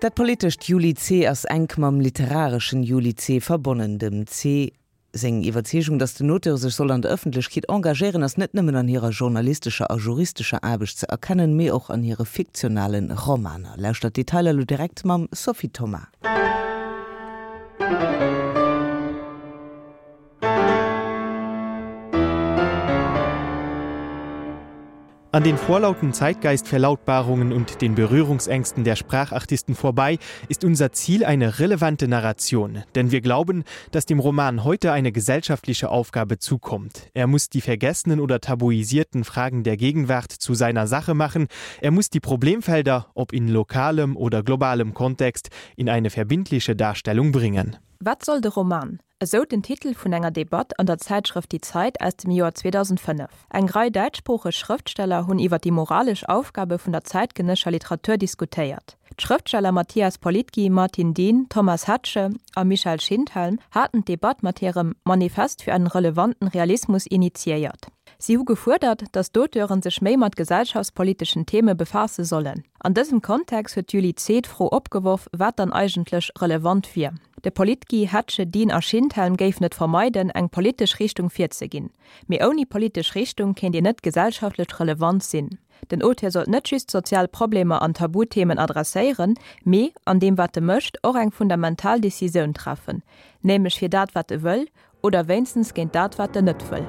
Dat politescht Juli Zeh ass enk mam literareschen Juli Zeh verbonnen. Dem Zeh seng Iwwerzeegung, datt den Auteur sech soll an der Ëffentlechkeet engagéieren, ass net nëmmen an hirer journalistescher a juristescher Aarbecht ze erkennen, mee och an hire fiktionale Romaner. Lauschtert d'Detailer elo direkt mam Sophie Thoma. An den vorlauten Zeitgeistverlautbarungen und den Berührungsängsten der Sprachartisten vorbei ist unser Ziel eine relevante Narration, denn wir glauben, dass dem Roman heute eine gesellschaftliche Aufgabe zukommt. Er muss die vergessenen oder tabuisierten Fragen der Gegenwart zu seiner Sache machen, er muss die Problemfelder, ob in lokalem oder globalem Kontext, in eine verbindliche Darstellung bringen. Wat soll de Roman? Esou den Titel vun enger Debatt an der Zäitschrëft Die Zeit aus dem Joer 2005. Eng Rei däitschsproocheg Schrëftsteller hunn iwwer déi moralesch Aufgabe vun der zäitgenësscher Literatur diskutéiert. D'Schrëftsteller Mathias Politki, Martin Dehn, Thomas Hettche a Michael Schindhelm haten d'Debatt mat hirem Manifest für einen relevanten Realismus initiéiert. Si hu gefuerdert, datt d'Auteuren sech méi mat gesellschaftspoliteschen Theme befaasse sollen. An dësem Kontext huet d'Julie Zeh d'Fro opgeworf, wat dann eigentlech relevant wier. De Politgi, Hettche, Dihn a Schindhelm géifen et vermeiden, eng politesch Richtung virzeginn. Mee ouni politesch Richtung kéint een net gesellschaftlech relevant sinn. Den Auteur sollt net just sozial Problemer an Tabuthemen adresséieren, mee, an deem wat e mécht, och eng fundamental Decisioun treffen, nämlech fir dat wat e wëll, oder wéinstens géint dat wat en net wëll.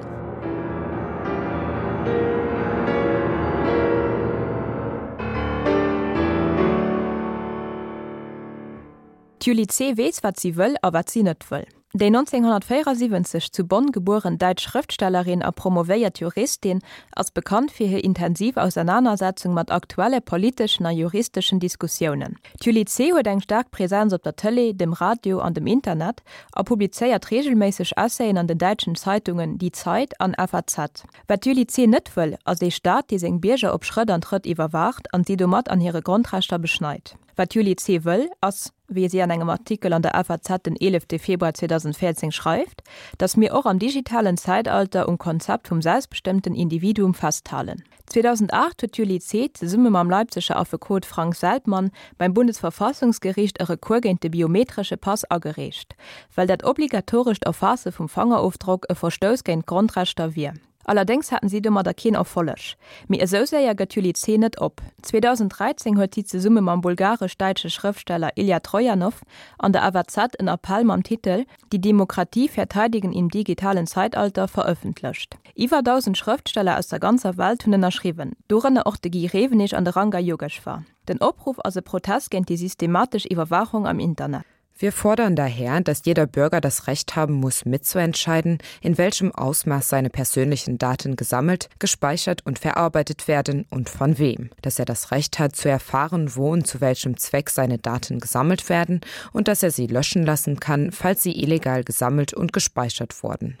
D'Julie Zeh weess, wat si wëll a wat si net wëll. Déi 1974 zu Bonn gebueren däitsch Schrëftstellerin a promovéiert Juristin ass bekannt fir hir intensiv Ausernanersetzung mat aktuelle politeschen a juristeschen Diskussiounen. D'Julie Zeh huet eng staark Presenz op der Tëlee, dem Radio an dem Internet a publizéiert reegelméisseg Essayen an den däitschen Zeitungen Die Zeit an FAZ. Wat d'Julie Zeh net wëll, ass ee Staat, dee seng Bierger op Schrëtt an Trëtt iwwerwaacht an si domat an hire Grondrechter beschneit. Wat d'Julie Zeh wëll, ass, wéi si an engem Artikel an der FAZ den 11 Februar 2014 schreift, datt mir och am digitalen Zäitalter um Konzept vum selbstbestëmmten Individuum festhalen. 2008 huet d'Julie Zeh zesumme mam Leipziger Affekot Frank Seltmann beim Bundesverfassungsgericht e Recours géint de biometresche Pass agereecht, well dat obligatorescht Erfaasse vum Fangerofdrock e Verstouss géint d'Grondrechter wier. Allerdéngs haten si domadder keen Erfolleg. Mee esou séier gëtt d'Julie Zeh net op. 2013 huet si zesumme mam bulgaresch-däitsche Schrëftsteller Ilja Trojanow an der FAZ en Appell mam Titel Die Demokratie verteidigen im digitalen Zeitalter verëffentlecht. Iwwer 1.000 Schrëftsteller aus der ganzer Welt hunn ënnerschriwwen, dorënner och de Guy Rewenig an de Ranga Yogeshwar. Den Opruff ass e Protest géint déi systematesch Iwwerwaachung am Internet. Wir fordern daher, dass jeder Bürger das Recht haben muss, mitzuentscheiden, in welchem Ausmaß seine persönlichen Daten gesammelt, gespeichert und verarbeitet werden und von wem, dass er das Recht hat, zu erfahren, wo und zu welchem Zweck seine Daten gesammelt werden und dass er sie löschen lassen kann, falls sie illegal gesammelt und gespeichert wurden.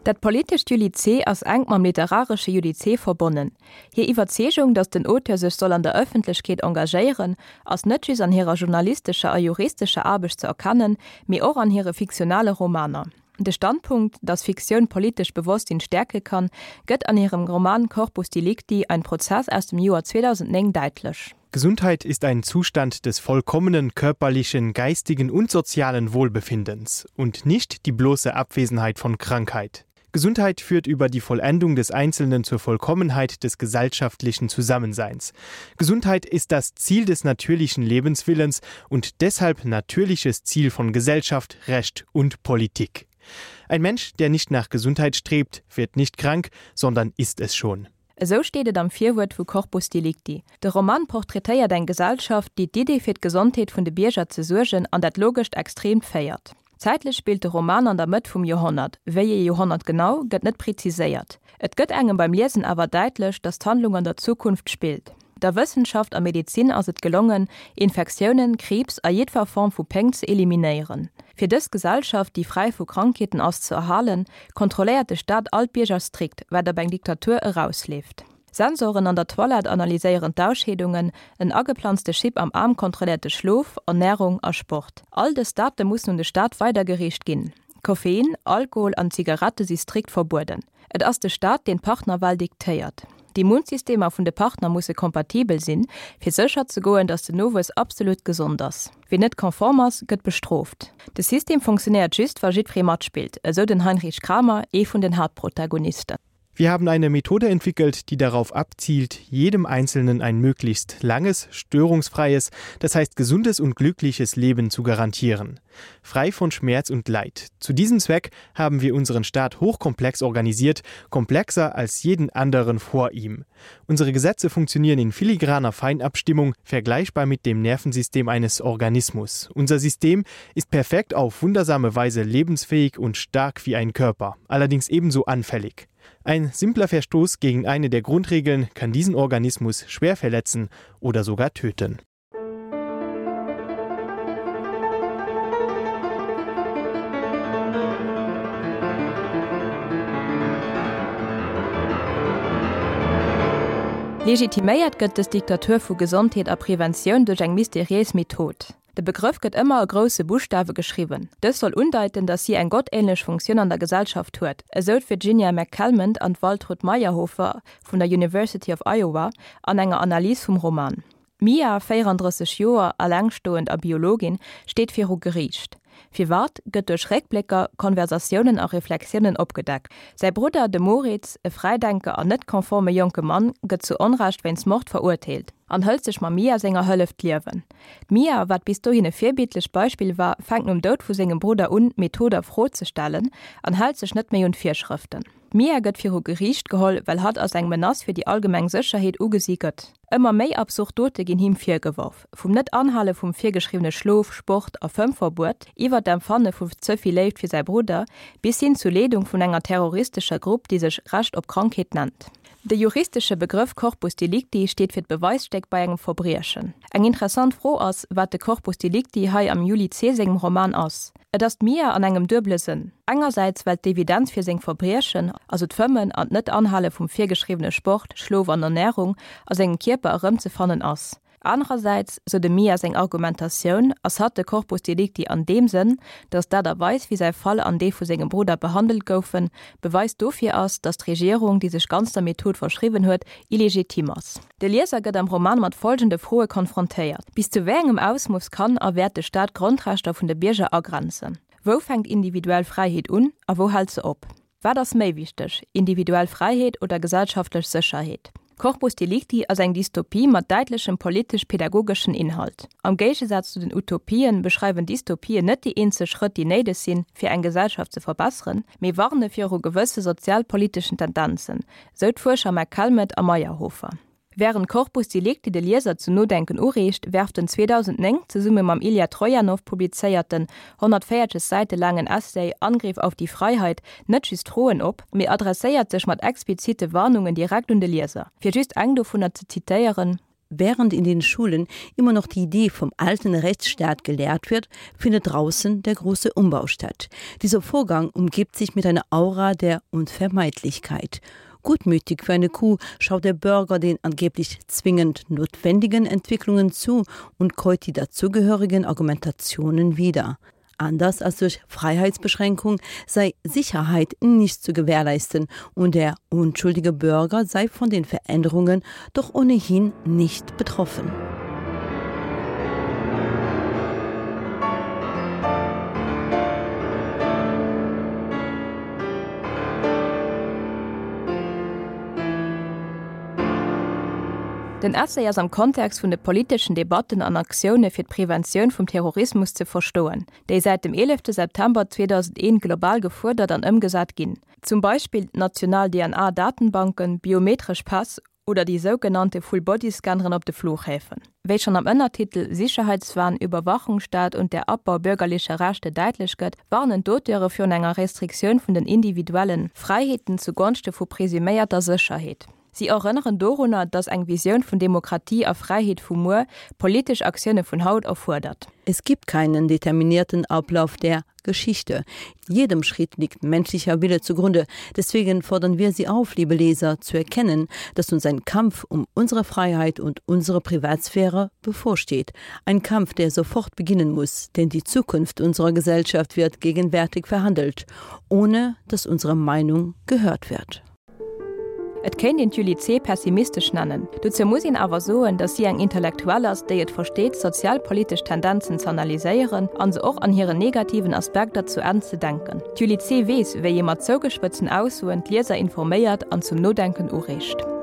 Dat politescht Julie Zeh ass enk mam literaresche Julie Zeh verbonnen. Hir Iwwerzeegung, datt den Auteur sech soll an der Ëffentlechkeet engagéieren, ass net just an hirer journalistescher a juristescher Aarbecht ze erkennen, mee och an hire fiktionale Romaner. De Standpunkt, datt Fiktioun politescht Bewosstsinn stäerke kann, gëtt an hirem Roman Corpus Delicti, ein Prozess aus dem Joer 2009 däitlech. Gesundheit ist ein Zustand des vollkommenen körperlichen, geistigen und sozialen Wohlbefindens und nicht die bloße Abwesenheit von Krankheit. Gesundheit führt über die Vollendung des Einzelnen zur Vollkommenheit des gesellschaftlichen Zusammenseins. Gesundheit ist das Ziel des natürlichen Lebenswillens und deshalb natürliches Ziel von Gesellschaft, Recht und Politik. Ein Mensch, der nicht nach Gesundheit strebt, wird nicht krank, sondern ist es schon. Esou steet et am Virwuert vu Corpus Delicti. De Roman portraitéiert eng Gesellschaft, déi d'Idee fir d'Gesondheet vun de Bierger ze suergen an dat logescht Extreemt féiert. Zäitlech spillt de Roman an der Mëtt vum Joerhonnert, wéi ee Joerhonnert genau, gëtt net preziséiert. Et gëtt engem beim Liesen awer däitlech, datt d'Handlung an der Zukunft spillt. Der Wëssenschaft a Medezin ass et gelongen, Infektiounen, Kriibs a jiddwer Form vu Péng ze eliminéieren. Fir dës Gesellschaft, déi fräi vu Krankheeten ass, ze erhalen, kontrolléiert de Staat all d'Bierger strikt, wat op eng Diktatur erausleeft. Sensoren an der Toilette analyséieren d'Ausscheedungen, en ageplanzte Chip am Aarm kontrolléiert de Schlof, Ernärung a Sport. All dës Date mussen un de Staat weidergereecht ginn. Koffein, Alkohol an Zigarette si strikt verbueden. Et ass de Staat, deen d'Partnerwal diktéiert. D'Immunsystemer vun de Partner musse kompatibel sinn, fir sécher ze goen, datt den Nowuess absolut gesond ass. Wien net konform ass, gëtt bestrooft. De System funktionéiert just, wa jiddweree matspillt, esou den Heinrich Kramer, ee vun den Haaptprotagonisten. Wir haben eine Methode entwickelt, die darauf abzielt, jedem Einzelnen ein möglichst langes, störungsfreies, das heißt gesundes und glückliches Leben zu garantieren. Frei von Schmerz und Leid. Zu diesem Zweck haben wir unseren Staat hochkomplex organisiert, komplexer als jeden anderen vor ihm. Unsere Gesetze funktionieren in filigraner Feinabstimmung, vergleichbar mit dem Nervensystem eines Organismus. Unser System ist perfekt auf wundersame Weise lebensfähig und stark wie ein Körper, allerdings ebenso anfällig. Ein simpler Verstoß gegen eine der Grundregeln kann diesen Organismus schwer verletzen oder sogar töten. Legitiméiert gëtt dës Diktatur vu Gesondheet a Preventioun duerch eng mysteriéis Method. De Begrëff gëtt ëmmer a grousse Buschtawe geschriwwen. Dës soll undeiten, datt si eng gottähnlech Funktioun an der Gesellschaft huet, esou d'Virginia McCalmont an d'Waltrud Maierhofer vun der University of Iowa an enger Analys vum Roman. D'Mia, 34 Joer, allengstoend a Biologin, steet viru Geriicht. Firwat, gëtt duerch Réckblécker, Konversatiounen a Reflexiounen opgedeckt. Säi Brudder, de Moritz, e Fräidenker an net konforme jonke Mann, gëtt zu Onrecht wéinst Mord verurteelt an hëlt sech mam Mia senger Hëllef d'Liewen. D'Mia, wat bis dohin e virbildlecht Beispill war, fänkt nom Doud vu sengem Brudder un, d'Method a Fro ze stellen an hält sech net méi un d'Virschrëften. D'Mia gëtt viru Geriicht geholl, well hatt als eng Menace fir déi allgemeng Sécherheet ugesi gëtt. Ëmmer méi absurd Dote ginn him virgeworf, vum Net-Anhale vum virgeschriwwene Schlof-, Sport a Fëmmverbuet, iwwer d'Empfanne vu ze vill Léift fir säi Brudder, bis hin zu Leedung vun enger terroristescher Grupp, déi sech Recht op Krankheet nennt. De juristesche Begrëff Corpus delicti steet fir d'Beweisstéck bei engem Verbriechen. Eng interessant Fro ass, wat de Corpus delicti hei am Juli Zeh sengem Roman ass. Et ass d'Mia an engem duebele Sënn. Engersäits well d'Evidenz fir seng Verbriechen, also d'Fëmmen an d'Net-Anhale vum virgeschriwwene Sport, Schlof an Ernärung, a sengem Kierper erëmzefannen ass. Anerersäits, sou dem Mia seng Argumentatioun, ass hatt de Corpus delicti an deem Sënn, datt d'Aart a Weis wéi säi Fall an dee vu sengem Brudder behandelt goufen, Beweis dofir ass, datt d'Regierung, déi sech ganz der Method verschriwwen huet, illegitim ass. De Lieser gëtt am Roman mat folgende Froe konfrontéiert, Bis zu wéi engem Ausmooss kann a wäert de Staat d'Grondrechter vun de Bierger agrenzen? Wou fänkt individuell Fräiheet un a wou hält se op? Wat ass méi wichteg, individuell Fräiheet oder gesellschaftlech Sécherheet? Corpus Delicti ass eng Dystopie mat däitlechem politesch-pedagogeschen Inhalt. Am Géigesaz zu den Utopien beschreiwen Dystopien net déi eenzel Schrëtt, déi néideg sinn, fir eng Gesellschaft ze verbesseren, mee warne viru gewësse sozialpoliteschen Tendenzen, sou d'Fuerscher McCalmont a Meyerhofer. Wärend Corpus Delicti de Lieser zum Nodenken ureegt, werft den 2009 zesumme mam Ilja Trojanow publizéierten, 140 Säite laangen Essay Angriff auf die Freiheit net just Froen op, mee adresséiert sech mat explizite Warnungen direkt un de Lieser. Fir just eng dovunner ze zitéieren. Während in den Schulen immer noch die Idee vom alten Rechtsstaat gelehrt wird, findet draußen der große Umbau statt. Dieser Vorgang umgibt sich mit einer Aura der Unvermeidlichkeit. Gutmütig für eine Kuh schaut der Bürger den angeblich zwingend notwendigen Entwicklungen zu und käut die dazugehörigen Argumentationen wieder. Anders als durch Freiheitsbeschränkung sei Sicherheit nicht zu gewährleisten und der unschuldige Bürger sei von den Veränderungen doch ohnehin nicht betroffen. Den Essay ass am Kontext vun de politeschen Debatten an Aktioune fir d'Preventioun vum Terrorismus ze verstoen, déi säit dem 11 September 2001 global gefuerdert an ëmgesat ginn, zum Beispill d'national DNA-Datenbanken, biometresch Päss oder déi sougenannte Full-Body-Scanneren op de Flughäfen. Wéi schonn am Ënnertitel Sicherheitswahn, Überwachungsstaat und der Abbau bürgerlicher Rechte däitlech gëtt, warnen d'Auteure virun enger Restriktioun vun den individuelle Fräiheeten zu Gonschte vu presuméierter Sécherheet. Si erënneren dorunner, datt eng Visioun vun Demokratie a Fräiheet vu muer politesch Aktioune vun haut erfuerdert. Es gibt keinen determinierten Ablauf der. Geschichte. Jedem Schritt liegt menschlicher Wille zugrunde. Deswegen fordern wir Sie auf, liebe Leser, zu erkennen, dass uns ein Kampf um unsere Freiheit und unsere Privatsphäre bevorsteht. Ein Kampf, der sofort beginnen muss, denn die Zukunft unserer Gesellschaft wird gegenwärtig verhandelt, ohne dass unsere Meinung gehört wird. Et kéint een d'Julie Zeh pessimistesch nennen. Dozou muss een awer soen, datt si eng Intellektuell ass, déi et versteet, sozialpolitesch Tendenzen z'analyséieren an se och an hiren negativen Aspekter zu Enn ze denken. D'Julie Zeh weess, wéi ee mat zougespëtzten Aussoen d'Lieser informéiert an zum Nodenken ureegt.